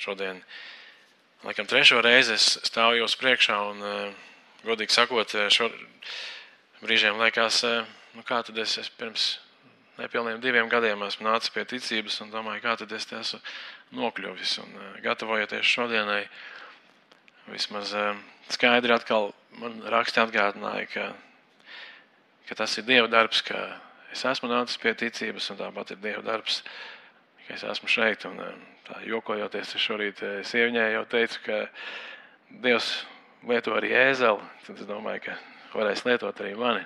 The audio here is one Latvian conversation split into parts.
šodien, laikam, 3. reizi es stāvu jūs priekšā un, godīgi sakot, brīžiem liekas, kā tad es pirms nepilniem 2 gadiem esmu nācis pie ticības un domāju, kā tad es te esmu nokļuvis. Un gatavojoties šodienai, vismaz skaidri atkal man raksti atgādināja, ka tas ir Dieva darbs, ka es esmu nācis pie ticības un tāpat ir Dieva darbs, ka es esmu šeit. Un tā jokojoties, es šorīt sieviņai jau teicu, ka Dievs lieto arī ēzeli, tad es domāju, ka varēs lietot arī mani.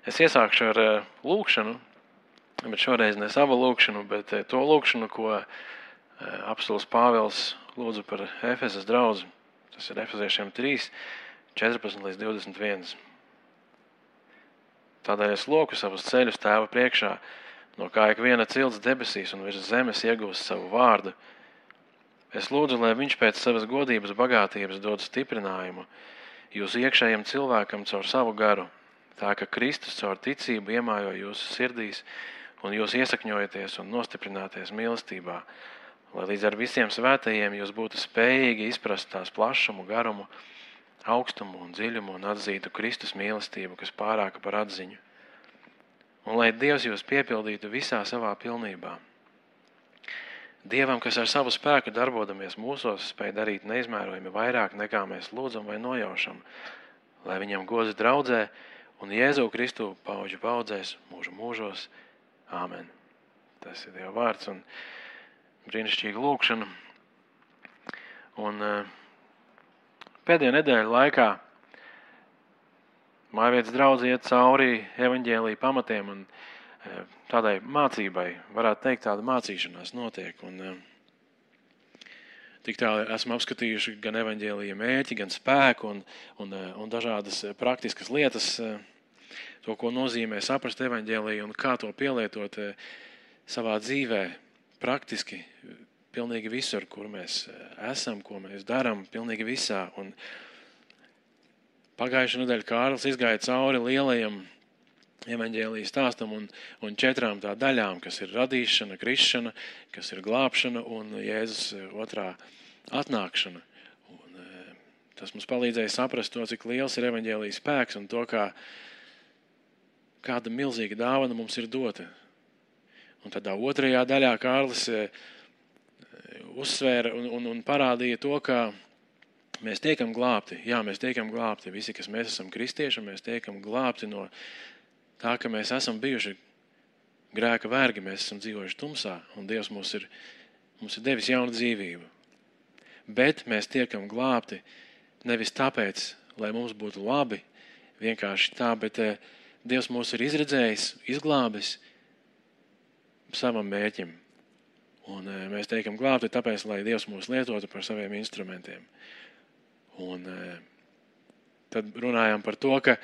Es iesākšu ar lūkšanu, bet šoreiz ne savu lūkšanu, bet to lūkšanu, ko apostuls Pāvils lūdza par Efesas draudzi. Tas ir Efeziešiem 3, 14 līdz 21. Tādēļ es loku savus ceļus Tēva priekšā, no kā ikviena cilts debesīs un virs zemes iegūst savu vārdu. Es lūdzu, lai viņš pēc savas godības bagātības dod stiprinājumu jūsu iekšējiem cilvēkam caur savu garu, tā ka Kristus caur ticību iemājo jūsu sirdīs un jūs iesakņojaties un nostiprināties mīlestībā, lai līdz ar visiem svētajiem jūs būtu spējīgi izprast tās plašumu, garumu, augstumu un dziļumu un atzītu Kristus mīlestību, kas pārāka par atziņu. Un lai Dievs jūs piepildītu visā savā pilnībā. Dievam, kas ar savu spēku darbodamies mūsos, spēj darīt neizmērojami vairāk nekā mēs lūdzam vai nojaušam, lai viņam gods draudzē un Jēzu Kristu pauģu paudzēs mūžu mūžos. Āmen. Tas ir Dieva vārds un brīnišķīga lūkšana. Un pēdējo nedēļu laikā Mājvietas draudze iet cauri evaņģēlija pamatiem un tādai mācībai, varētu teikt, tāda mācīšanās notiek. Un tik tā esam apskatījuši gan evaņģēlija mērķi, gan spēku un dažādas praktiskas lietas, to, ko nozīmē saprast evaņģēliju un kā to pielietot savā dzīvē praktiski, pilnīgi visur, kur mēs esam, ko mēs darām, pilnīgi visā. Un pagājušā nedēļa Kārlis izgāja cauri lielajam evaņģēlija stāstam un 4 tā daļām, kas ir radīšana, krišana, kas ir glābšana un Jēzus otrā atnākšana. Un tas mums palīdzēja saprast to, cik liels ir evaņģēlija spēks un to, kāda milzīga dāvana mums ir dota. Un tādā 2. daļā Kārlis uzsvēra un parādīja to, ka mēs tiekam glābti. Jā, mēs tiekam glābti. Visi, kas mēs esam kristieši, mēs tiekam glābti no tā, ka mēs esam bijuši grēka vergi, mēs esam dzīvojuši tumsā, un Dievs mums ir devis jaunu dzīvību. Bet mēs tiekam glābti nevis tāpēc, lai mums būtu labi, vienkārši tā, bet Dievs mūs ir izredzējis, izglābis savam mērķim. Un mēs tiekam glābti tāpēc, lai Dievs mūs lietotu par saviem instrumentiem. Un tad runājām par to, ka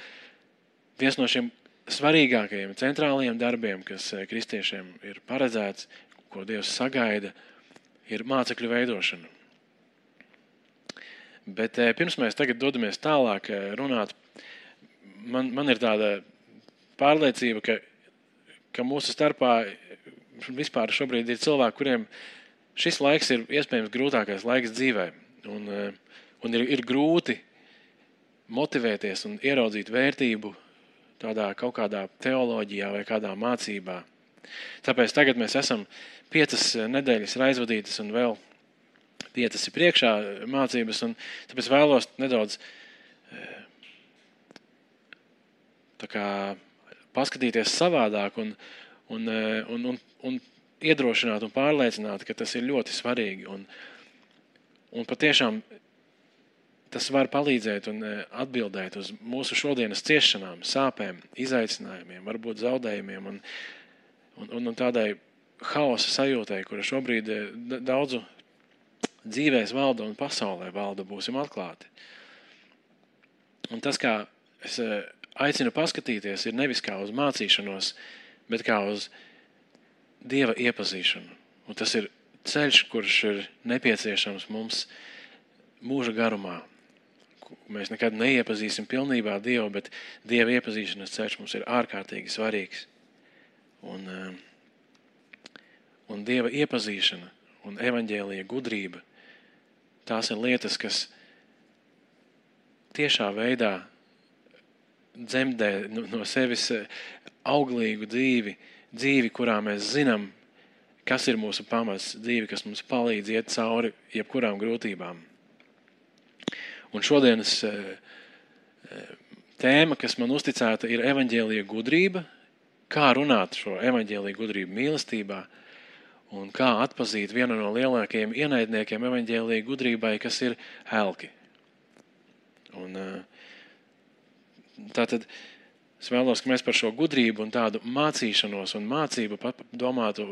viens no šiem svarīgākajiem, centrālajiem darbiem, kas kristiešiem ir paredzēts, ko Dievs sagaida, ir mācekļu veidošana. Bet pirms mēs tagad dodamies tālāk runāt, man ir tāda pārliecība, ka mūsu starpā vispār šobrīd ir cilvēki, kuriem šis laiks ir iespējams grūtākais laiks dzīvē. Un ir grūti motivēties un ieraudzīt vērtību tādā kaut kādā teoloģijā vai kādā mācībā. Tāpēc tagad mēs esam 5 nedēļas aizvadītas un vēl 5 ir priekšā mācības, un tāpēc vēlos nedaudz tā kā paskatīties savādāk un iedrošināt un pārliecināt, ka tas ir ļoti svarīgi. Un patiešām tas var palīdzēt un atbildēt uz mūsu šodienas ciešanām, sāpēm, izaicinājumiem, varbūt zaudējumiem un tādai haosa sajūtai, kura šobrīd daudzu dzīvēs valda un pasaulē valda, būsim atklāti. Un tas, kā es aicinu paskatīties, ir nevis kā uz mācīšanos, bet kā uz Dieva iepazīšanu. Un tas ir ceļš, kurš ir nepieciešams mums mūža garumā. Mēs nekad neiepazīsim pilnībā Dievu, bet Dieva iepazīšanas ceļš mums ir ārkārtīgi svarīgs. un Dieva iepazīšana un evaņģēlija gudrība, tās ir lietas, kas tiešā veidā dzemdē no sevis auglīgu dzīvi, kurā mēs zinām, kas ir mūsu pamats, dzīve, kas mums palīdz iet cauri jebkurām grūtībām. Un šodienas tēma, kas man uzticēta, ir evaņģēlija gudrība, kā runāt šo evaņģēlija gudrību mīlestībā un kā atpazīt vienu no lielākajiem ienaidniekiem evaņģēlija gudrībai, kas ir elki. Un tātad es vēlos, ka mēs par šo gudrību un tādu mācīšanos un mācību domātu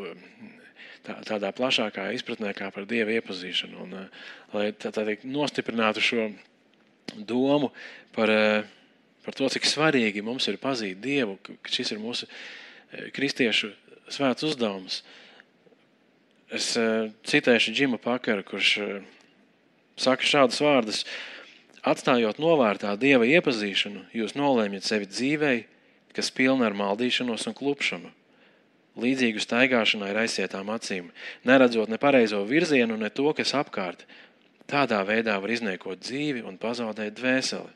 tādā plašākā izpratnē kā par Dieva iepazīšanu. Un, lai tā nostiprinātu šo domu par to, cik svarīgi mums ir pazīt Dievu, ka šis ir mūsu kristiešu svēts uzdevums. Es citēšu Džimu Pakaru, kurš saka šādus vārdus: atstājot novārtā Dieva iepazīšanu, jūs nolēmjat sevi dzīvei, kas pilna ar maldīšanos un klupšanu, līdzīgu staigāšanai ar aizsietām acīm, neredzot ne pareizo virzienu, ne to, kas apkārt. Tādā veidā var izniekot dzīvi un pazaudēt dvēseli.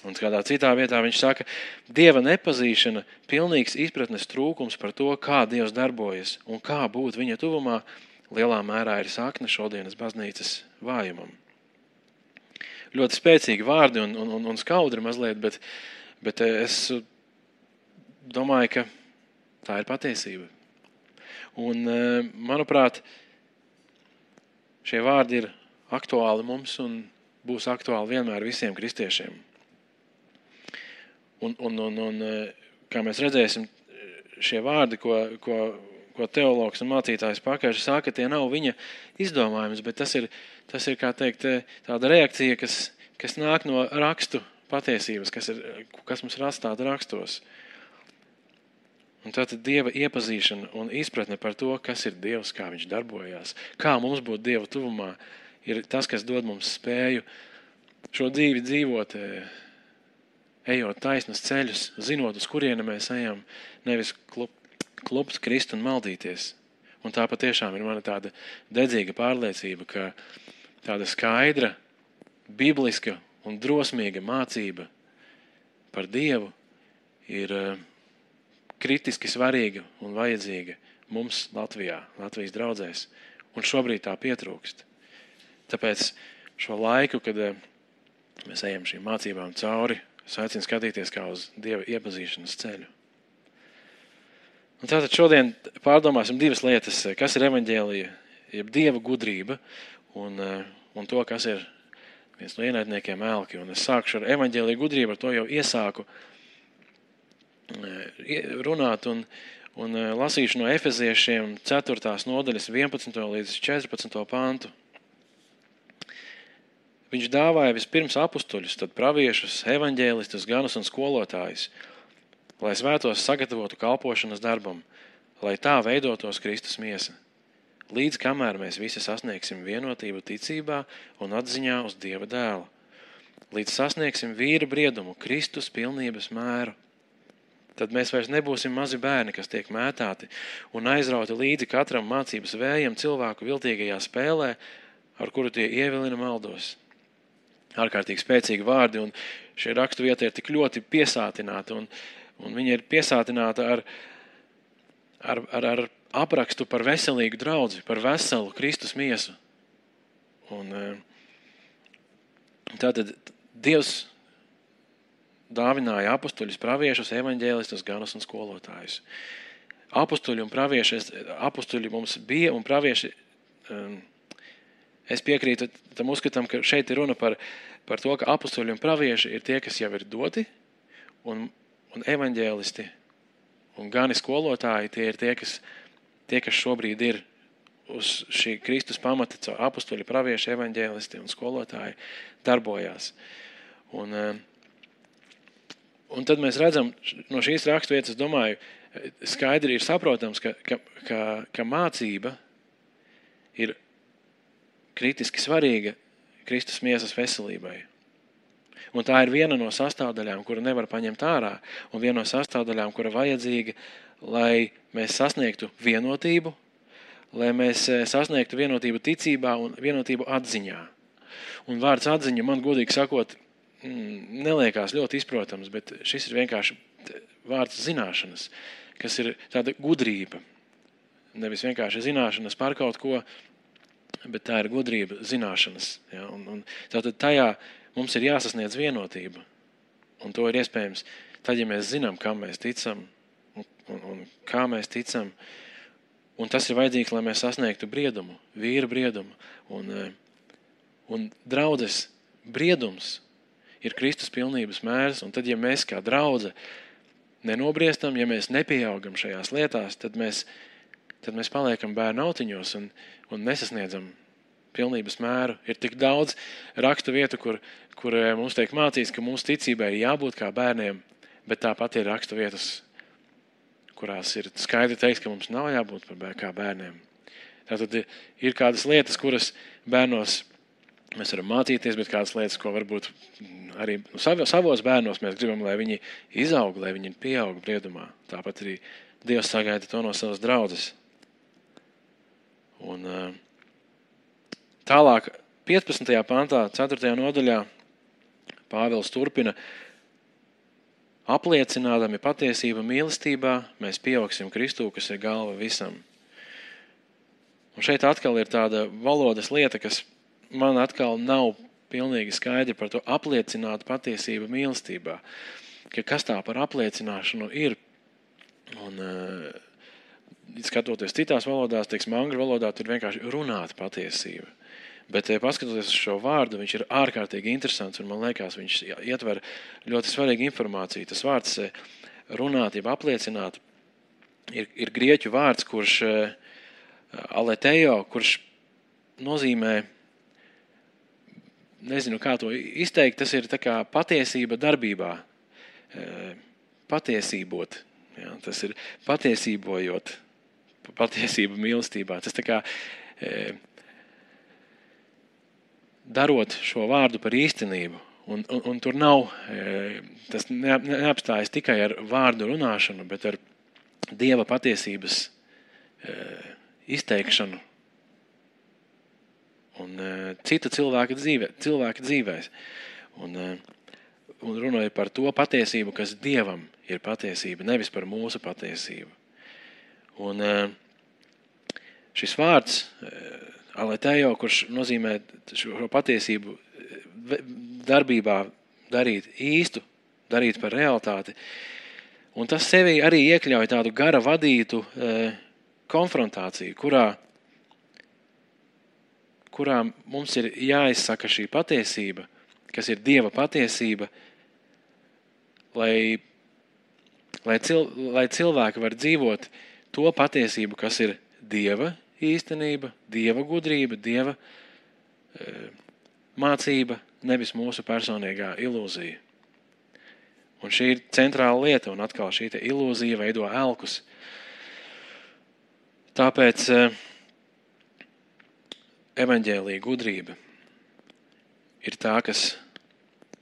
Un kādā citā vietā viņš saka, Dieva nepazīšana, pilnīgs izpratnes trūkums par to, kā Dievs darbojas un kā būt viņa tuvumā, lielā mērā ir sakne šodienas baznīcas vājumam. Ļoti spēcīgi vārdi un skaudri mazliet, bet es domāju, ka tā ir patiesība. Un, manuprāt, šie vārdi ir aktuāli mums un būs aktuāli vienmēr visiem kristiešiem. Un kā mēs redzēsim, šie vārdi, ko teologs un mācītājs Pakaļš saka, tie nav viņa izdomājums, bet tas ir, kā teikt, tāda reakcija, kas nāk no rakstu patiesības, kas mums ir atstāta rakstos. Un tātad Dieva iepazīšana un izpratne par to, kas ir Dievs, kā viņš darbojās, kā mums būt Dieva tuvumā, ir tas, kas dod mums spēju šo dzīvi dzīvot, ejot taisnas ceļus, zinot, uz kurieni mēs ejam, nevis klupt, krist un maldīties. Un tā patiešām ir mana tāda dedzīga pārliecība, ka tāda skaidra, bibliska un drosmīga mācība par Dievu ir kritiski svarīga un vajadzīga mums Latvijā, Latvijas draudzēs, un šobrīd tā pietrūkst. Tāpēc šo laiku, kad mēs ejam šīm mācībām cauri, es aicinu skatīties kā uz Dieva iepazīšanas ceļu. Un tātad šodien pārdomāsim divas lietas, kas ir evaņģēlija, jeb Dieva gudrība, un to, kas ir viens no ienaidniekiem elki. Un es sākšu ar evaņģēlija gudrību, ar to jau iesāku runāt un lasīšu no Efeziešiem 4. nodaļas 11. līdz 14. pantu. Viņš dāvāja vispirms apustuļus, tad praviešus, evaņģēlistus, ganus un skolotājus, lai svētos sagatavotu kalpošanas darbam, lai tā veidotos Kristus miesa, līdz kamēr mēs visi sasniegsim vienotību ticībā un atziņā uz Dieva dēlu, līdz sasniegsim vīra briedumu, Kristus pilnības mēru. Tad mēs vairs nebūsim mazi bērni, kas tiek mētāti un aizrauti līdzi katram mācības vējam cilvēku viltīgajā spēlē, ar kuru tie ievilina maldos. Ārkārtīgi spēcīgi vārdi, un šie rakstu vieta ir tik ļoti piesātināta, un viņa ir piesātināta ar aprakstu par veselīgu draudzi, par veselu Kristus miesu. Un tātad Dievs dāvināja apustuļus, praviešus, evaņģēlistus, ganus un skolotājus. Apustuļi mums bija un pravieši, es piekrītu tam uzskatam, ka šeit ir runa par to, ka apustuļi un pravieši ir tie, kas jau ir doti, un evaņģēlisti un gani skolotāji, tie ir tie, kas šobrīd ir uz šī Kristus pamata, caur apustuļi, pravieši, evaņģēlisti un skolotāji darbojās. Un tad mēs redzam no šīs raksturvietas, es domāju, skaidri ir saprotams, ka mācība ir kritiski svarīga Kristus miesas veselībai. Un tā ir viena no sastāvdaļām, kuru nevar paņemt ārā, un viena no sastāvdaļām, kura vajadzīga, lai mēs sasniegtu vienotību, lai mēs sasniegtu vienotību ticībā un vienotību atziņā. Un vārds atziņa man, godīgi sakot, neliekās ļoti izprotams, bet šis ir vienkārši vārds zināšanas, kas ir tāda gudrība. Nevis vienkārši zināšanas par kaut ko, bet tā ir gudrība zināšanas. Ja? Un tātad tajā mums ir jāsasniedz vienotība. Un to ir iespējams tad, ja mēs zinām, kam mēs ticam un kā mēs ticam. Un tas ir vajadzīgs, lai mēs sasniegtu briedumu, vīra briedumu. Un draudzes briedums ir Kristus pilnības mērs. Un tad, ja mēs kā draudze nenobriestam, ja mēs nepieaugam šajās lietās, tad mēs paliekam bērnu autiņos un nesasniedzam pilnības mēru. Ir tik daudz rakstu vietu, kur mums tiek mācīts, ka mūsu ticībai ir jābūt kā bērniem, bet tāpat ir rakstu vietas, kurās ir skaidri teiks, ka mums nav jābūt kā bērniem. Tātad ir kādas lietas, kuras bērnos mēs varam mācīties, bet kādas lietas, ko varbūt arī savos bērnos mēs gribam, lai viņi izaug, lai viņi pieaug briedumā. Tāpat arī Dievs sagaida to no savas draudzes. Un tālāk 15. pantā, 4. nodaļā, Pāvils turpina: apliecinādami patiesību mīlestībā, mēs pieaugsim Kristū, kas ir galva visam. Un šeit atkal ir tāda valodas lieta, kas man atkal nav pilnīgi skaidri par to apliecināt patiesību mīlestībā. Kas tā par apliecināšanu ir? Un skatoties citās valodās, teiksim, angļu valodā, tur vienkārši runāt patiesību. Bet paskatoties uz šo vārdu, viņš ir ārkārtīgi interesants, un man liekas, viņš ietver ļoti svarīgu informāciju. Tas vārds runāt, jeb apliecināt, ir grieķu vārds, kurš aletejo, kurš nozīmē, nezinu, kā to izteikt, tas ir tā kā patiesība darbībā, patiesībot. Ja, tas ir patiesībojot, patiesība mīlestībā. Tas tā kā darot šo vārdu par īstenību. Un tur nav, tas neapstājas tikai ar vārdu runāšanu, bet ar Dieva patiesības izteikšanu un cita cilvēka dzīvēs. Un runāja par to patiesību, kas Dievam ir patiesība, nevis par mūsu patiesību. Un šis vārds aletejo, kurš nozīmē šo patiesību darbībā darīt īstu, darīt par realitāti. Un tas sevi arī iekļauj tādu gara vadītu konfrontāciju, kurā mums ir jāizsaka šī patiesība, kas ir Dieva patiesība, lai cilvēki var dzīvot to patiesību, kas ir Dieva īstenība, Dieva gudrība, Dieva mācība, nevis mūsu personīgā ilūzija. Un šī ir centrāla lieta, un atkal šī ilūzija veido elkus. Tāpēc evaņģēlija gudrība ir tā, kas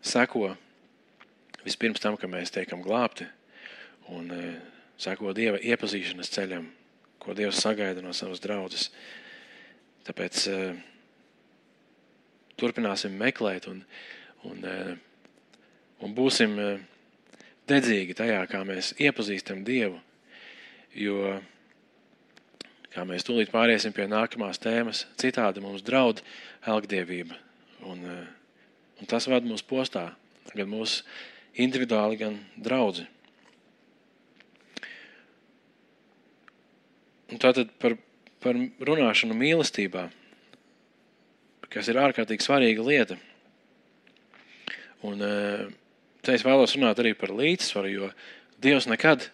seko vispirms tam, ka mēs tiekam glābti, un seko Dieva iepazīšanas ceļam, ko Dievs sagaida no savas draudzes. Tāpēc turpināsim meklēt un būsim dedzīgi tajā, kā mēs iepazīstam Dievu, jo, kā mēs tūlīt pāriesim pie nākamās tēmas, citādi mums draud elgdievība. Un tas vada mūs postā, gan mūsu individuāli, gan draudzi. Un tātad par runāšanu mīlestībā, kas ir ārkārtīgi svarīga lieta. Un te es vēlos runāt arī par līdzsvaru, jo Dievs nekad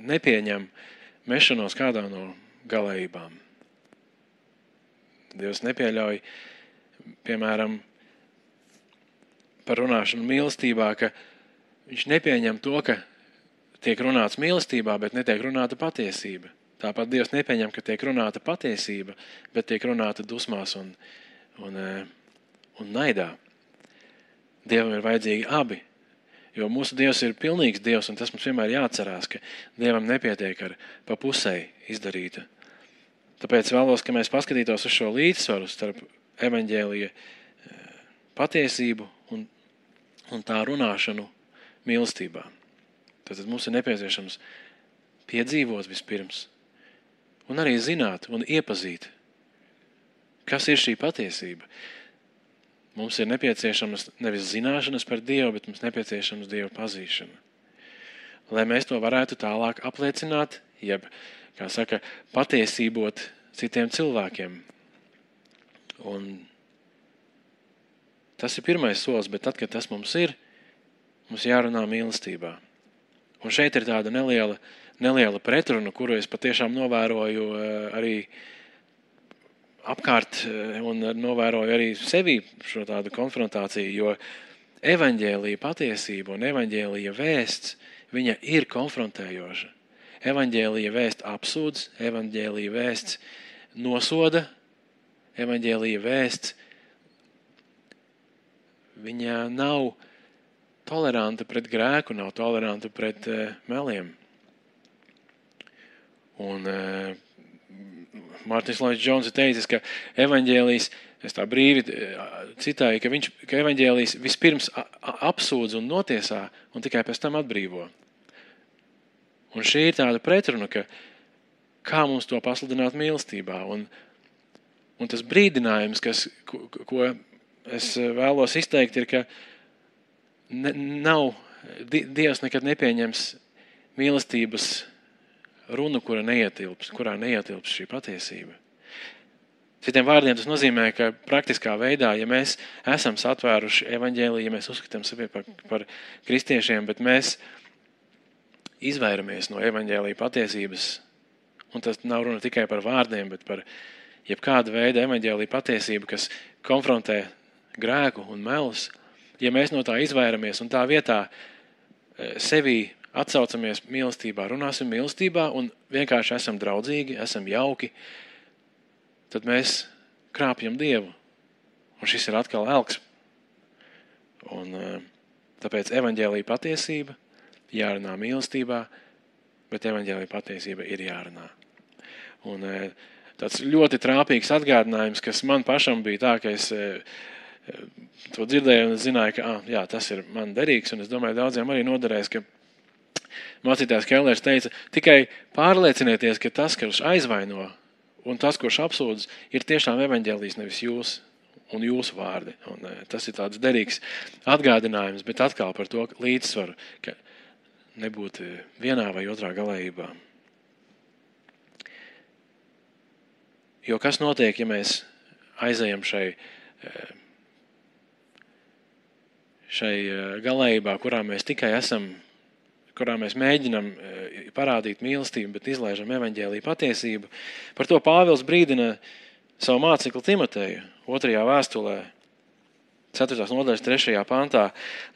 nepieņem mešanos kādā no galējībām. Dievs nepieļauj, piemēram, par runāšanu mīlestībā, ka viņš nepieņem to, ka tiek runāts mīlestībā, bet netiek runāta patiesība. Tāpat Dievs nepieņem, ka tiek runāta patiesība, bet tiek runāta dusmās un naidā. Dievam ir vajadzīgi abi, jo mūsu Dievs ir pilnīgs Dievs, un tas mums vienmēr jāatcerās, ka Dievam nepietiek ar pa pusei izdarīta. Tāpēc vēlos, ka mēs paskatītos uz šo līdzsvaru starp evaņģēlija patiesību un tā runāšanu mīlestībā. Tātad mums ir nepieciešams piedzīvot vispirms, un arī zināt un iepazīt, kas ir šī patiesība. Mums ir nepieciešamas nevis zināšanas par Dievu, bet mums nepieciešams Dieva pazīšana. Lai mēs to varētu tālāk apliecināt, jeb, kā saka, patiesībot citiem cilvēkiem. Un tas ir pirmais solis, bet tad, kad tas mums ir, mums jārunā mīlestībā. Un šeit ir tāda neliela pretruna, kuru es patiešām novēroju arī apkārt un novēroju arī sevī šo tādu konfrontāciju, jo evaņģēlija patiesība un evaņģēlija vēsts, viņa ir konfrontējoša. Evaņģēlija vēsts apsūdz, evaņģēlija vēsts nosoda, evaņģēlija vēsts, viņa nav toleranta pret grēku, nav toleranta pret meliem. Un Mārtiņš Lloyds Jones ir teicis, ka evaņģēlijs, es tā brīvi citāju, ka evaņģēlijs vispirms apsūdz un notiesā un tikai pēc tam atbrīvo. Un šī ir tāda pretruna, ka kā mums to pasludināt mīlestībā. Un tas brīdinājums, ko es vēlos izteikt, ir, ka Dievs nekad nepieņems mīlestības runu, kurā neietilps šī patiesība. Citiem vārdiem tas nozīmē, ka praktiskā veidā, ja mēs esam satvēruši evaņģēliju, ja mēs uzskatām sevi par kristiešiem, bet mēs izvairamies no evaņģēlija patiesības, un tas nav runa tikai par vārdiem, bet par jebkādu veidu evaņģēlija patiesību, kas konfrontē grēku un melus, ja mēs no tā izvairamies un tā vietā sevī atsaucamies mīlestībā, runāsim mīlestībā un vienkārši esam draudzīgi, esam jauki, tad mēs krāpjam Dievu. Un šis ir atkal elks. Un tāpēc evaņģēlija patiesība jārunā mīlestībā, bet evaņģēlija patiesība ir jārunā. Un tāds ļoti trāpīgs atgādinājums, kas man pašam bija tā, ka es to dzirdēju un zināju, ka jā, tas ir man derīgs, un es domāju, daudziem arī noderēs, ka mācītājs Kellers teica, tikai pārliecinieties, ka tas, kurš aizvaino un tas, kurš apsūdz, ir tiešām evaņģēlijs, nevis jūs un jūsu vārdi. Un tas ir tāds derīgs atgādinājums, bet atkal par to līdzsvaru, ka nebūt vienā vai otrā galējībā. Jo kas notiek, ja mēs aizejam šai galējībā, kurā mēs tikai esam, kurā mēs mēģinam parādīt mīlestību, bet izlaižam evaņģēliju patiesību. Par to Pāvils brīdina savu mācekli Timoteju 2. vēstulē, 4. nodaļas 3. pantā.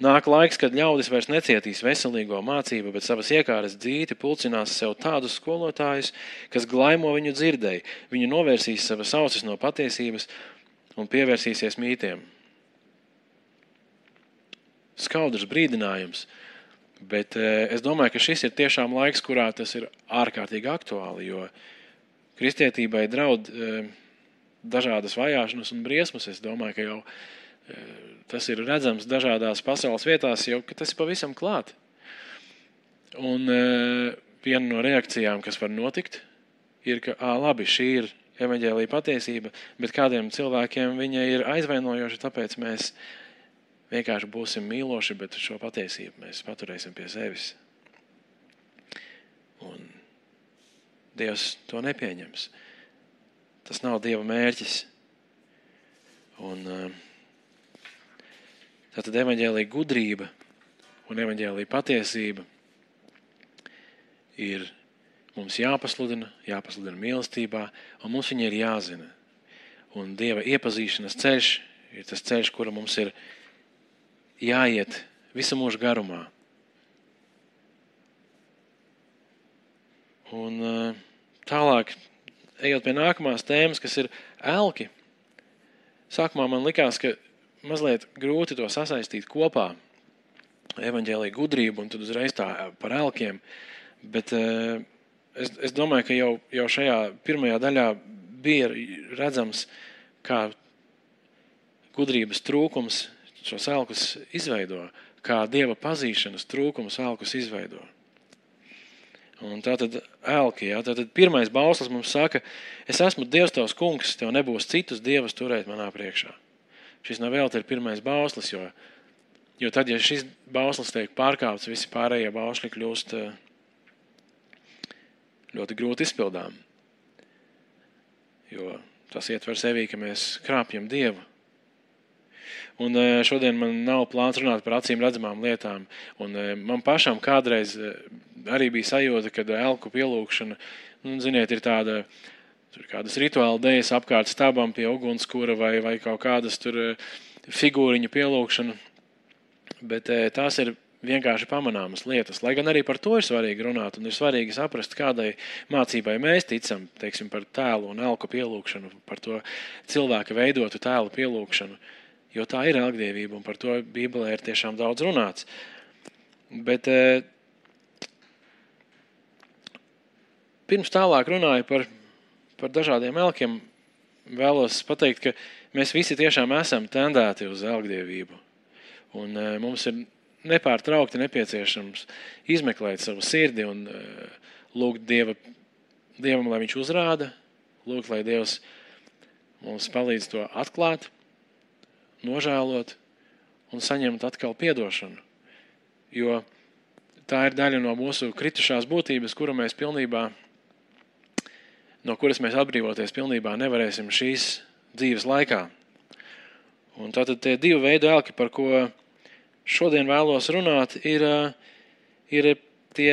Nāk laiks, kad ļaudis vairs necietīs veselīgo mācību, bet savas iekāras dzīti pulcinās sev tādus skolotājus, kas glaimo viņu dzirdēji. Viņu novērsīs savas ausis no patiesības un pievērsīsies mītiem. Skaudrs brīdinājums. Bet es domāju, ka šis ir tiešām laiks, kurā tas ir ārkārtīgi aktuāli, jo kristietībai draud dažādas vajāšanas un briesmas. Es domāju, ka jau tas ir redzams dažādās pasaules vietās, jau ka tas ir pavisam klāt. Un viena no reakcijām, kas var notikt, ir, ka labi, šī ir evaņģēlija patiesība, bet kādiem cilvēkiem viņa ir aizvainojoša, tāpēc mēs vienkārši būsim mīloši, bet šo patiesību mēs paturēsim pie sevis. Un Dievs to nepieņems. Tas nav Dieva mērķis. Un tātad evaņģēlija gudrība un evaņģēlija patiesība ir mums jāpasludina mīlestībā, un mums viņa ir jāzina. Un Dieva iepazīšanas ceļš ir tas ceļš, kura mums ir jāiet visu mūžu garumā. Un tālāk, ejot pie nākamās tēmas, kas ir elki. Sākumā man likās, ka mazliet grūti to sasaistīt kopā, evaņģēlija gudrību un tad uzreiz tā par elkiem, bet es domāju, ka jau šajā pirmajā daļā bija redzams, kā gudrības trūkums šos elkus izveido, kā Dieva pazīšanas trūkums elkus izveido. Un tātad elki, tātad pirmais bauslis mums saka, es esmu Dievs tavs kungs, tev nebūs citus dievus turēt manā priekšā. Šis nav vēl ir pirmais bauslis, jo tad, ja šis bauslis tiek pārkāpts, visi pārējie bausļi kļūst ļoti grūti izpildām. Jo tas ietver sevī, ka mēs krāpjam Dievu. Un šodien man nav plāns runāt par acīm redzamām lietām. Un man pašam kādreiz arī bija sajūta, kad elku pielūkšana, ziniet, ir kādas rituāla dejas apkārt stabam pie ugunskura vai kaut kādas tur figūriņu pielūkšana. Bet tās ir vienkārši pamanāmas lietas. Lai gan arī par to ir svarīgi runāt un ir svarīgi saprast, kādai mācībai mēs ticam, teiksim, par tēlu un elku pielūkšanu, par to cilvēka veidotu tēlu pielūkšanu. Jo tā ir elgdievība, un par to Bībelē ir tiešām daudz runāts. Bet pirms tālāk runāju par dažādiem elkiem, vēlos pateikt, ka mēs visi tiešām esam tendēti uz elgdievību. Un mums ir nepārtraukti nepieciešams izmeklēt savu sirdi un lūgt Dievam, lai viņš uzrāda, lūgt, lai Dievs mums palīdz to atklāt, nožēlot un saņemt atkal piedošanu. Jo tā ir daļa no mūsu kritušās būtības, no kuras mēs atbrīvoties pilnībā nevarēsim šīs dzīves laikā. Un tātad tie divi veidi elki, par ko šodien vēlos runāt, ir tie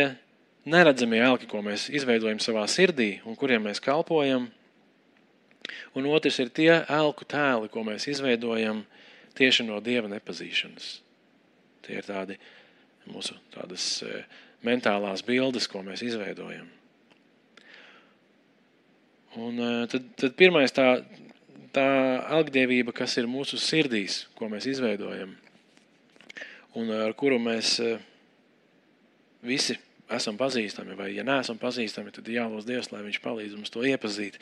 neredzamie elki, ko mēs izveidojam savā sirdī un kuriem mēs kalpojam. Un otrs ir tie elku tēli, ko mēs izveidojam tieši no Dieva nepazīšanas. Tie ir tādi mūsu tādas mentālās bildes, ko mēs izveidojam. Un tad pirmais tā elgdievība, kas ir mūsu sirdīs, ko mēs izveidojam, un ar kuru mēs visi esam pazīstami, vai ja neesam pazīstami, tad jālūdz Dievs, lai viņš palīdz mums to iepazīt.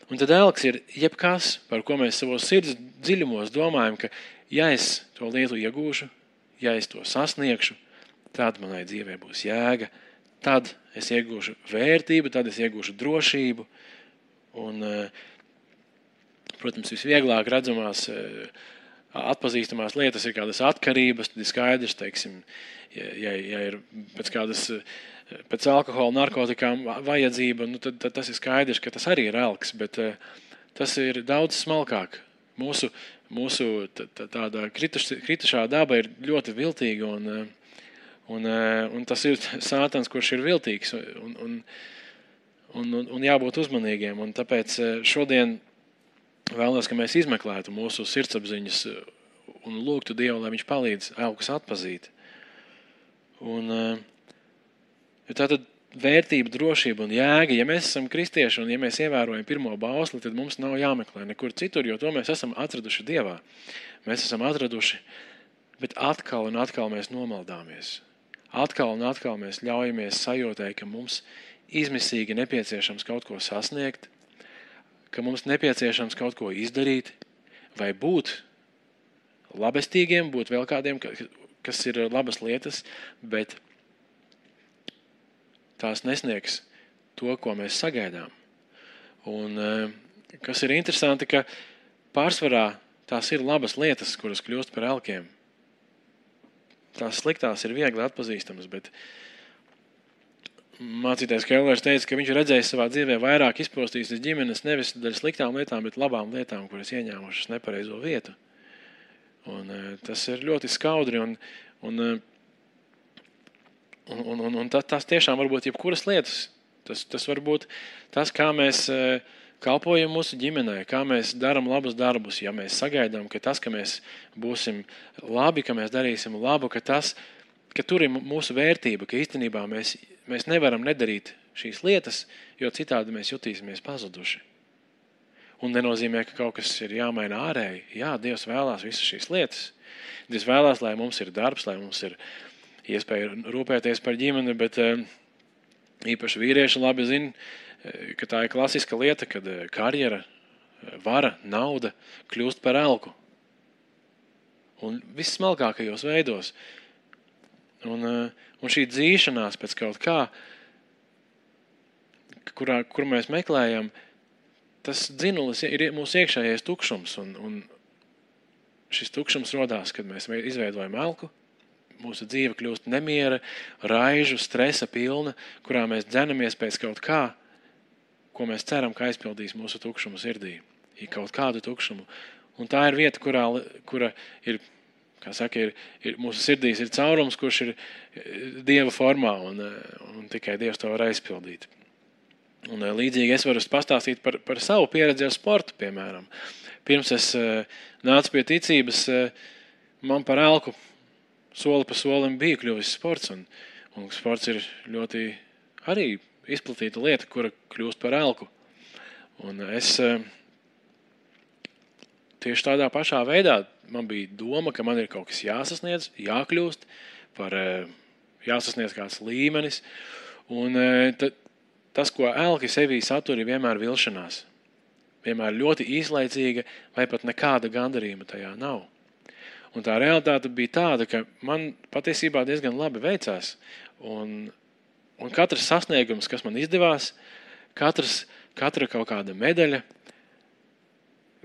Un tad elks ir jebkas, par ko mēs savos sirds dziļumos domājam, ka ja es to lietu iegūšu, ja es to sasniegšu, tad manai dzīvē būs jēga, tad es iegūšu vērtību, tad es iegūšu drošību. Un, protams, visvieglāk redzamās, atpazīstamās lietas ir kādas atkarības, tad ir skaidrs, teiksim, ja ir pēc alkohola, narkotikām vajadzība, tad tas ir skaidrs, ka tas arī ir elks, bet tas ir daudz smalkāk. Mūsu tāda kritušā daba ir ļoti viltīga, un tas ir sātans, kurš ir viltīgs, un jābūt uzmanīgiem. Un tāpēc šodien vēlos, ka mēs izmeklētu mūsu sirdsapziņas un lūgtu Dievu, lai viņš palīdz elkus atpazīt. Un tātad vērtība, drošība un jēga, ja mēs esam kristieši un ja mēs ievērojam pirmo bausli, tad mums nav jāmeklē nekur citur, jo to mēs esam atraduši Dievā. Mēs esam atraduši, bet atkal un atkal mēs nomaldāmies. Atkal un atkal mēs ļaujamies sajūtai, ka mums izmisīgi nepieciešams kaut ko sasniegt, ka mums nepieciešams kaut ko izdarīt, vai būt labestīgiem, būt vēl kādiem, kas ir labas lietas, bet tās nesniegs to, ko mēs sagaidām. Un kas ir interesanti, ka pārsvarā tās ir labas lietas, kuras kļūst par elkiem. Tās sliktās ir viegli atpazīstamas, bet mācītājs Kellers teica, ka viņš redzējis savā dzīvē vairāk izpostītas ģimenes nevis daļa sliktām lietām, bet labām lietām, kuras ieņēmušas nepareizo vietu. Un tas ir ļoti skaudri, un tas tiešām var būt jebkuras lietas. Tas var būt tas, kā mēs kalpojam mūsu ģimenē, kā mēs darām labus darbus, ja mēs sagaidām, ka tas, ka mēs būsim labi, ka mēs darīsim labu, ka tur ir mūsu vērtība, ka īstenībā mēs nevaram nedarīt šīs lietas, jo citādi mēs jutīsimies pazuduši. Un nenozīmē, ka kaut kas ir jāmaina ārēji. Jā, Dievs vēlās visas šīs lietas. Dievs vēlās, lai mums ir darbs, lai mums ir iespēja rūpēties par ģimeni, bet īpaši vīrieši labi zina, ka tā ir klasiska lieta, kad karjera, vara, nauda kļūst par elku. Un viss smalkākajos veidos. Un šī dzīšanās pēc kaut kā, kur mēs meklējam, tas dzinulis ir mūsu iekšējais tukšums. Un šis tukšums rodās, kad mēs izveidojam elku. Mūsu dzīve kļūst nemiera, raižu, stresa pilna, kurā mēs dzenamies pēc kaut kā, ko mēs ceram, ka aizpildīs mūsu tukšumu sirdī. Ir kaut kādu tukšumu. Un tā ir vieta, kura ir, kā saka, ir mūsu sirdīs ir caurums, kurš ir Dieva formā, un tikai Dievs to var aizpildīt. Un līdzīgi es varu pastāstīt par savu pieredzi ar sportu, piemēram. Pirms es nācu pie ticības, man par elku soli pa solim bija kļuvis sports, un sports ir ļoti arī izplatīta lieta, kura kļūst par elku. Un es tieši tādā pašā veidā man bija doma, ka man ir kaut kas jāsasniedz, jākļūst, jāsasniedz kāds līmenis, un tas, ko elki sevī satur, ir vienmēr vilšanās. Vienmēr ļoti īslaicīga, vai pat nekāda gandarījuma tajā nav. Un tā realitāte bija tāda, ka man patiesībā diezgan labi veicās. Un katrs sasniegums, kas man izdevās, katra kaut kāda medaļa,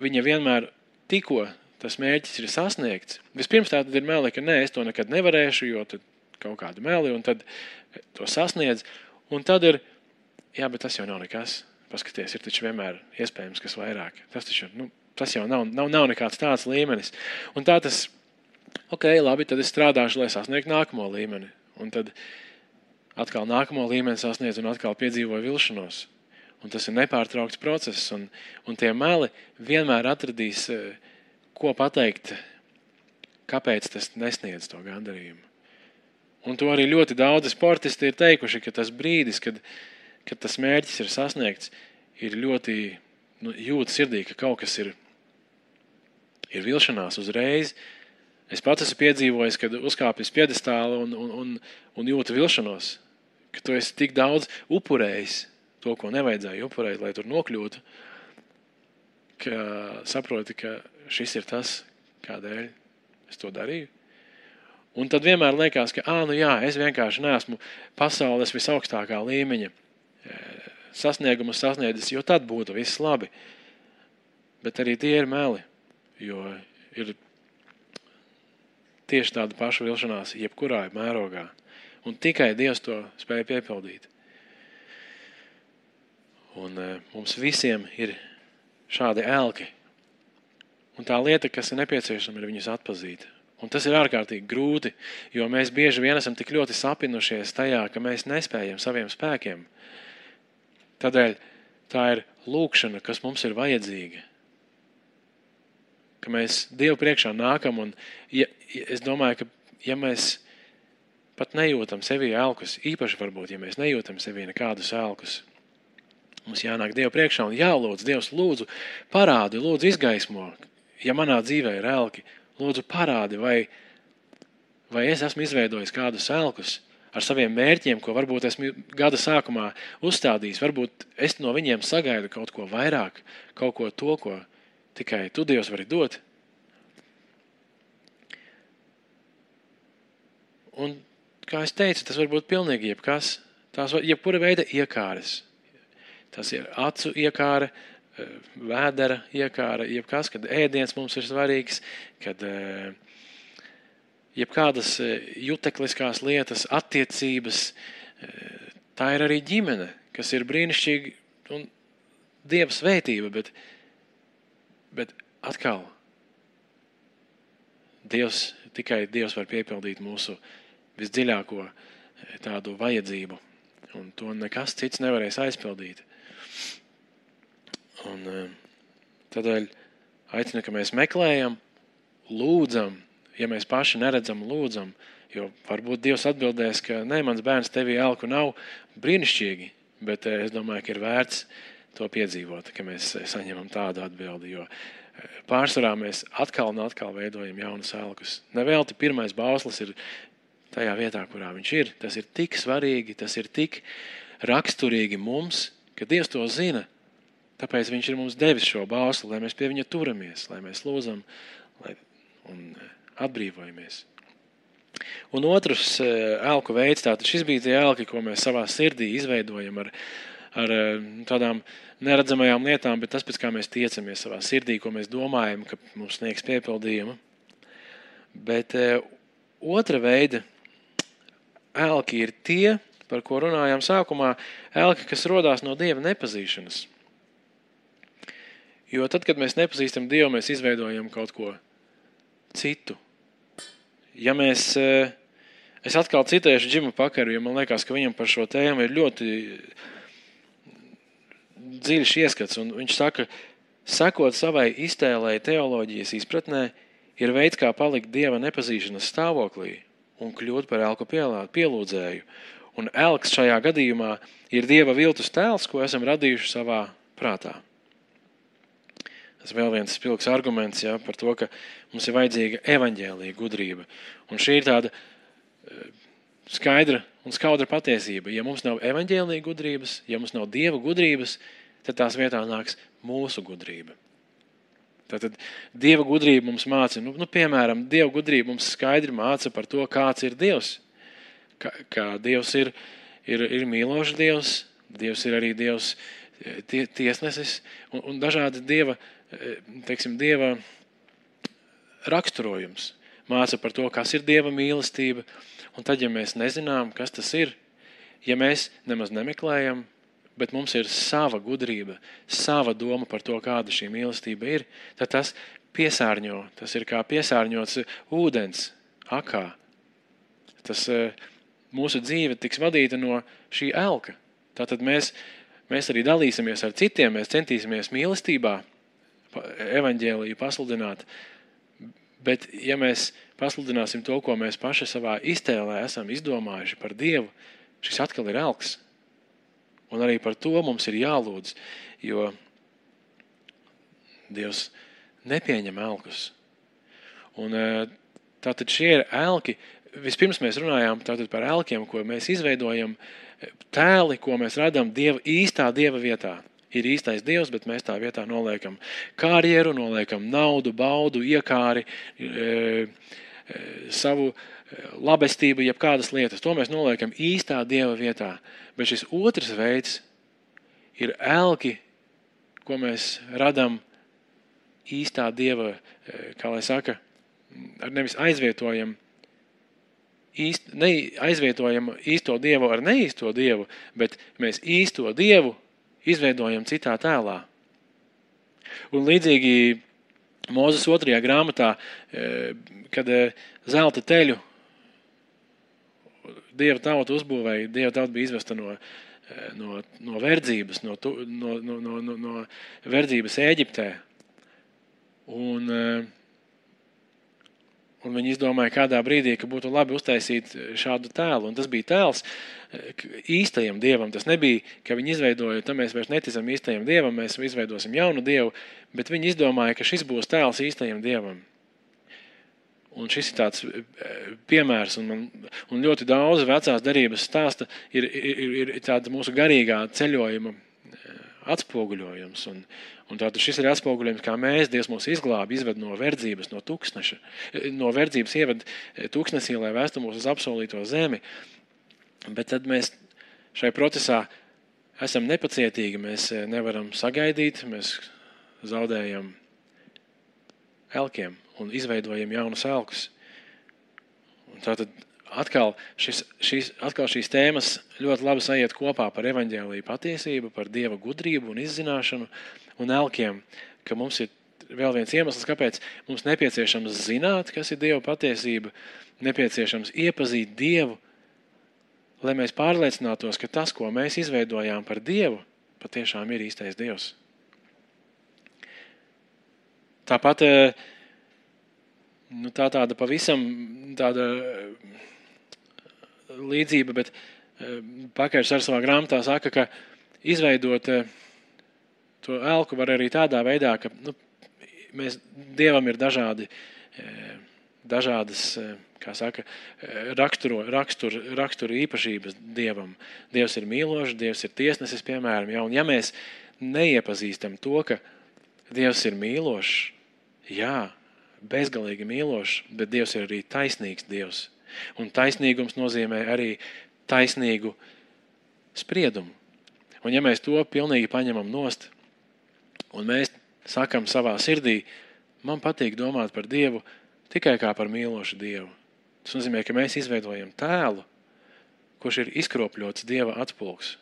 viņa vienmēr tikko tas mērķis ir sasniegts. Vispirms tā tad ir meli, ka es to nekad nevarēšu, jo tad kaut kādu meli, un tad to sasniedz. Un tad ir, jā, bet tas jau nav nekas. Paskaties, ir taču vienmēr iespējams, kas vairāk. Tas jau nav nekāds tāds līmenis. Un tā tas, labi, tad es strādāšu, lai sasniegtu nākamo līmeni. Un tad atkal nākamo līmeni sasniedz un atkal piedzīvoju vilšanos. Un tas ir nepārtraukts process. Un tie meli vienmēr atradīs, ko pateikt, kāpēc tas nesniedz to gandarījumu. Un to arī ļoti daudzi sportisti ir teikuši, ka tas brīdis, kad tas mērķis ir sasniegts, ir ļoti jūt sirdī, ka kaut kas ir vilšanās uzreiz. Es pats esmu piedzīvojis, kad uzkāpis piedestāli un jūtu vilšanos, ka tu esi tik daudz upurējis to, ko nevajadzēja upurēt, lai tur nokļūtu, ka saproti, ka šis ir tas, kādēļ es to darīju. Un tad vienmēr liekas, ka es vienkārši neesmu pasaules visaugstākā līmeņa sasniegumus sasniedzis, jo tad būtu viss labi. Bet arī tie ir meli, jo ir tieši tāda paša vilšanās jebkurā mērogā. Un tikai Dievs to spēja piepildīt. Un mums visiem ir šādi elki. Un tā lieta, kas ir nepieciešama, ir viņus atpazīt. Un tas ir ārkārtīgi grūti, jo mēs bieži vien esam tik ļoti sapinušies tajā, ka mēs nespējam saviem spēkiem. Tādēļ tā ir lūkšana, kas mums ir vajadzīga. Ka mēs Dievu priekšā nākam un es domāju, ka ja mēs pat nejūtam sevī elkus, īpaši varbūt, ja mēs nejūtam sevī nekādus elkus, mums jānāk Dievu priekšā un jālūdz, Dievs lūdzu parādi, lūdzu izgaismo, ja manā dzīvē ir elki, lūdzu parādi, vai es esmu izveidojis kādus elkus ar saviem mērķiem, ko varbūt esmu gada sākumā uzstādījis. Varbūt es no viņiem sagaidu kaut ko vairāk, kaut ko to, ko tikai tu, Dievs, vari dot. Un, kā es teicu, tas var būt pilnīgi jebkas. Tās jebkura veida iekāres. Tas ir acu iekāre, vēdera iekāre, jebkas, kad ēdiens mums ir svarīgs, kad jebkādas jutekliskās lietas, attiecības, tā ir arī ģimene, kas ir brīnišķīgi un Dieva svētība, bet atkal tikai Dievs var piepildīt mūsu visdziļāko tādu vajadzību, un to nekas cits nevarēs aizpildīt. Un tādēļ aicinu, ka mēs meklējam, lūdzam, ja mēs paši neredzam, lūdzam, jo varbūt Dievs atbildēs, ka mans bērns tevī elku nav, brīnišķīgi, bet es domāju, ka ir vērts to piedzīvot, ka mēs saņemam tādu atbildi, jo pārsvarā mēs atkal un atkal veidojam jaunus elkus. Nevelti pirmais bauslis ir tajā vietā, kurā viņš ir. Tas ir tik svarīgi, tas ir tik raksturīgi mums, ka Dievs to zina. Tāpēc viņš ir mums devis šo bausli, lai mēs pie viņa turamies, lai mēs lūdzam un atbrīvojamies. Un otrs elku veids, tātad šis bija tie elki, ko mēs savā sirdī izveidojam ar tādām neredzamajām lietām, bet tas, pēc kā mēs tiecamies savā sirdī, ko mēs domājam, ka mums sniegs piepildījumu. Bet otra veida elki ir tie, par ko runājām sākumā, elki, kas rodās no Dieva nepazīšanas. Jo tad, kad mēs nepazīstam Dievu, mēs izveidojam kaut ko citu. Ja mēs, es atkal citēšu Džimu Pakaru, jo man liekas, ka viņam par šo tēmu ir ļoti dziļš ieskats, un viņš saka, sekot savai iztēlei teoloģijas izpratnē, ir veids, kā palikt Dieva nepazīšanas stāvoklī un kļūt par elku pielūdzēju. Un elks šajā gadījumā ir Dieva viltus tēls, ko esam radījuši savā prātā. Tas vēl viens spilgs arguments par to, ka mums ir vajadzīga evaņģēlija gudrība. Un šī ir tāda skaidra un skaudra patiesība. Ja mums nav evaņģēlija gudrības, ja mums nav Dieva gudrības, tad tās vietā nāks mūsu gudrība. Tātad Dieva gudrība mums māca, piemēram, Dieva gudrība mums skaidri māca par to, kāds ir Dievs. Kā Dievs ir mīlošs Dievs, Dievs ir arī Dievs tiesnesis un dažādi Dieva raksturojums. Māca par to, kas ir Dieva mīlestība, un tad, ja mēs nezinām, kas tas ir, ja mēs nemaz nemeklējam, bet mums ir sava gudrība, sava doma par to, kāda šī mīlestība ir, tad tas piesārņo, tas ir kā piesārņots ūdens akā. Tas mūsu dzīve tiks vadīta no šī elka. Tātad mēs arī dalīsimies ar citiem, mēs centīsimies mīlestībā evaņģēliju pasludināt, bet ja mēs pasludināsim to, ko mēs paši savā iztēlē esam izdomājuši par Dievu, šis atkal ir elks. Un arī par to mums ir jālūdz, jo Dievs nepieņem elkus. Un tātad šie ir elki. Vispirms mēs runājām tātad par elkiem, ko mēs izveidojam, tēli, ko mēs radām īstā Dieva vietā. Ir īstais Dievs, bet mēs tā vietā noliekam karjeru, noliekam naudu, baudu, iekāri, savu labestību, jeb kādas lietas. To mēs noliekam īstā Dieva vietā. Bet šis otrs veids ir elki, ko mēs radām īstā Dieva, kā lai saka, nevis aizvietojam īsto Dievu ar neīsto Dievu, bet mēs īsto Dievu izveidojam citā tēlā. Un līdzīgi Mūzes 2. grāmatā, kad zelta teļu Dieva tauta uzbūvēja, Dieva tauta bija izvesta no verdzības, no verdzības Ēģiptē. Un viņi izdomāja kādā brīdī, ka būtu labi uztaisīt šādu tēlu. Un tas bija tēls īstajam Dievam. Tas nebija, ka viņi izveidoja, tad mēs vairs neticam īstajam Dievam, mēs izveidosim jaunu Dievu, bet viņi izdomāja, ka šis būs tēls īstajam Dievam. Un šis ir tāds piemērs, un ļoti daudz vecās derības stāsta ir tāda mūsu garīgā ceļojuma atspoguļojums. Un tātad šis ir atspoguļojums, kā Dievs mūs izglābi, izved no verdzības, no tūkstneša, no verdzības ieved tūkstnesī, lai vēstu mūs uz apsolīto zemi. Bet tad mēs šai procesā esam nepacietīgi, mēs nevaram sagaidīt, mēs zaudējam elkiem un izveidojam jaunus elkus. Un tātad atkal šīs tēmas ļoti labi sajiet kopā par evaņģēliju patiesību, par Dieva gudrību un izzināšanu un elkiem, ka mums ir vēl viens iemesls, kāpēc mums nepieciešams zināt, kas ir Dieva patiesība, nepieciešams iepazīt Dievu, lai mēs pārliecinātos, ka tas, ko mēs izveidojām par Dievu, patiešām ir īstais Dievs. Tāpat tāda pavisam tāda līdzība, bet Pakars ar savā grāmatā saka, ka izveidot To elku var arī tādā veidā, ka Dievam ir dažādas, kā saka, rakstura īpašības Dievam. Dievs ir mīlošs, Dievs ir tiesnesis, piemēram. Ja? Un ja mēs neiepazīstam to, ka Dievs ir mīlošs, jā, bezgalīgi mīlošs, bet Dievs ir arī taisnīgs Dievs. Un taisnīgums nozīmē arī taisnīgu spriedumu. Un ja mēs to pilnīgi paņemam nost, un mēs sakam savā sirdī, man patīk domāt par Dievu tikai kā par mīlošu Dievu. Tas nozīmē, ka mēs izveidojam tēlu, kurš ir izkropļots Dieva atspulgs.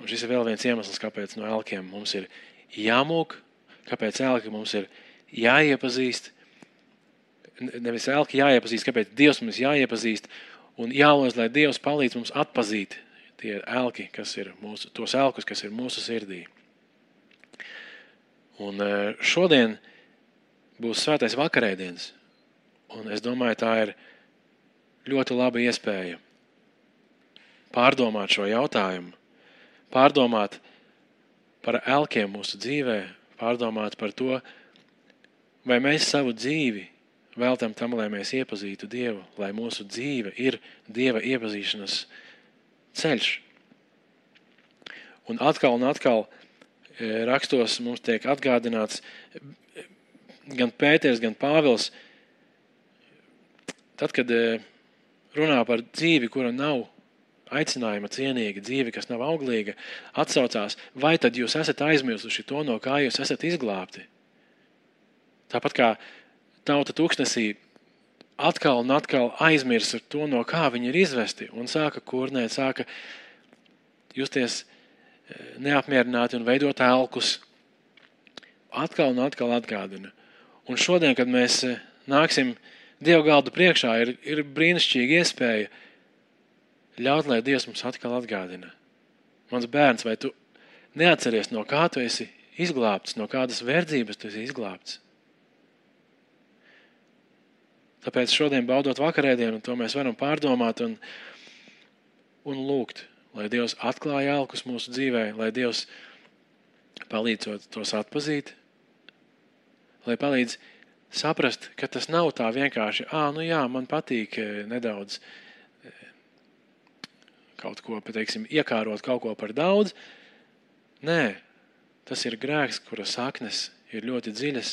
Un šis ir vēl viens iemesls, kāpēc no elkiem mums ir jāmūk, kāpēc elki mums ir jāiepazīst, nevis elki jāiepazīst, kāpēc Dievs mums jāiepazīst, un jālūdz, lai Dievs palīdz mums atpazīt tie elki, tos elkus, kas ir mūsu sirdī. Un šodien būs svētais vakarēdienas, un es domāju, tā ir ļoti laba iespēja pārdomāt šo jautājumu, pārdomāt par elkiem mūsu dzīvē, pārdomāt par to, vai mēs savu dzīvi veltam tam, lai mēs iepazītu Dievu, lai mūsu dzīve ir Dieva iepazīšanas ceļš. Un atkal rakstos mums tiek atgādināts gan Pēters, gan Pāvils, tad, kad runā par dzīvi, kura nav aicinājuma cienīga, dzīve, kas nav auglīga, atsaucās, vai tad jūs esat aizmirsuši to, no kā jūs esat izglābti. Tāpat kā tauta tūkstnesī atkal un atkal aizmirsa to, no kā viņi ir izvesti, un sāka kurnēt, sāka justies neapmierināti un veidot elkus. Atkal un atkal atgādina. Un šodien, kad mēs nāksim Dieva galda priekšā, ir brīnišķīga iespēja ļaut, lai Dievs mums atkal atgādina. Mans bērns, vai tu neatceries, no kā tu esi izglābts, no kādas verdzības tu esi izglābts? Tāpēc šodien, baudot vakarēdienu, to mēs varam pārdomāt un lūgt, lai Dievs atklāja elkus mūsu dzīvē, lai Dievs palīdz tos atpazīt, lai palīdz saprast, ka tas nav tā vienkārši, man patīk nedaudz kaut ko, teiksim, iekārot kaut ko par daudz. Nē, tas ir grēks, kura saknes ir ļoti dziļas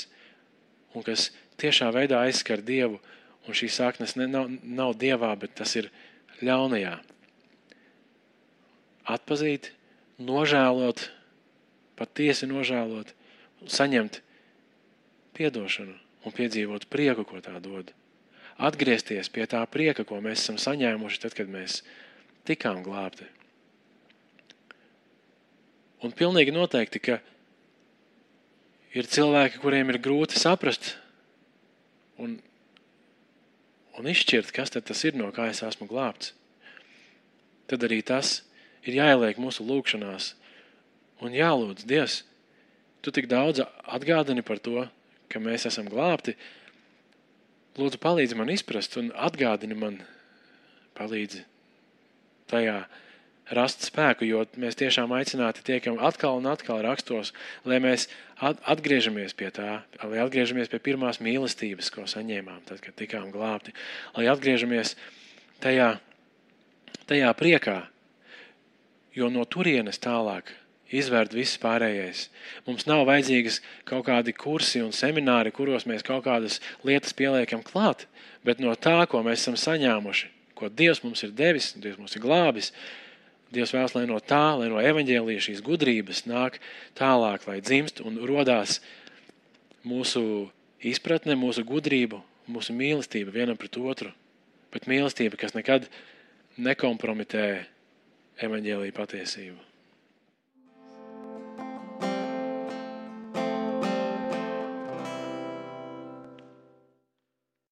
un kas tiešā veidā aizskar Dievu, un šī saknes nav Dievā, bet tas ir ļaunajā. Atpazīt, nožēlot, patiesi nožēlot, saņemt piedošanu un piedzīvot prieku, ko tā dod. Atgriezties pie tā prieka, ko mēs esam saņēmuši tad, kad mēs tikām glābti. Un pilnīgi noteikti, ka ir cilvēki, kuriem ir grūti saprast un izšķirt, kas tad tas ir, no kā es esmu glābts. Tad arī tas ir jāieliek mūsu lūgšanās un jālūdz, Dievs, tu tik daudz atgādini par to, ka mēs esam glābti. Lūdzu, palīdzi man izprast un atgādini man, palīdzi tajā rast spēku, jo mēs tiešām aicināti tiekam atkal un atkal rakstos, lai mēs atgriežamies pie tā, lai atgriežamies pie pirmās mīlestības, ko saņēmām, tad, kad tikām glābti, lai atgriežamies tajā priekā, jo no turienes tālāk izvērt viss pārējais. Mums nav vajadzīgas kaut kādi kursi un semināri, kuros mēs kaut kādas lietas pieliekam klāt, bet no tā, ko mēs esam saņēmuši, ko Dievs mums ir devis, Dievs mums ir glābis, Dievs vēlas, lai no tā, lai no evaņģēlija šīs gudrības nāk tālāk, lai dzimst un rodās mūsu izpratne, mūsu gudrību, mūsu mīlestība vienam pret otru, bet mīlestība, kas nekad nekompromitē evaņģēlija patiesību.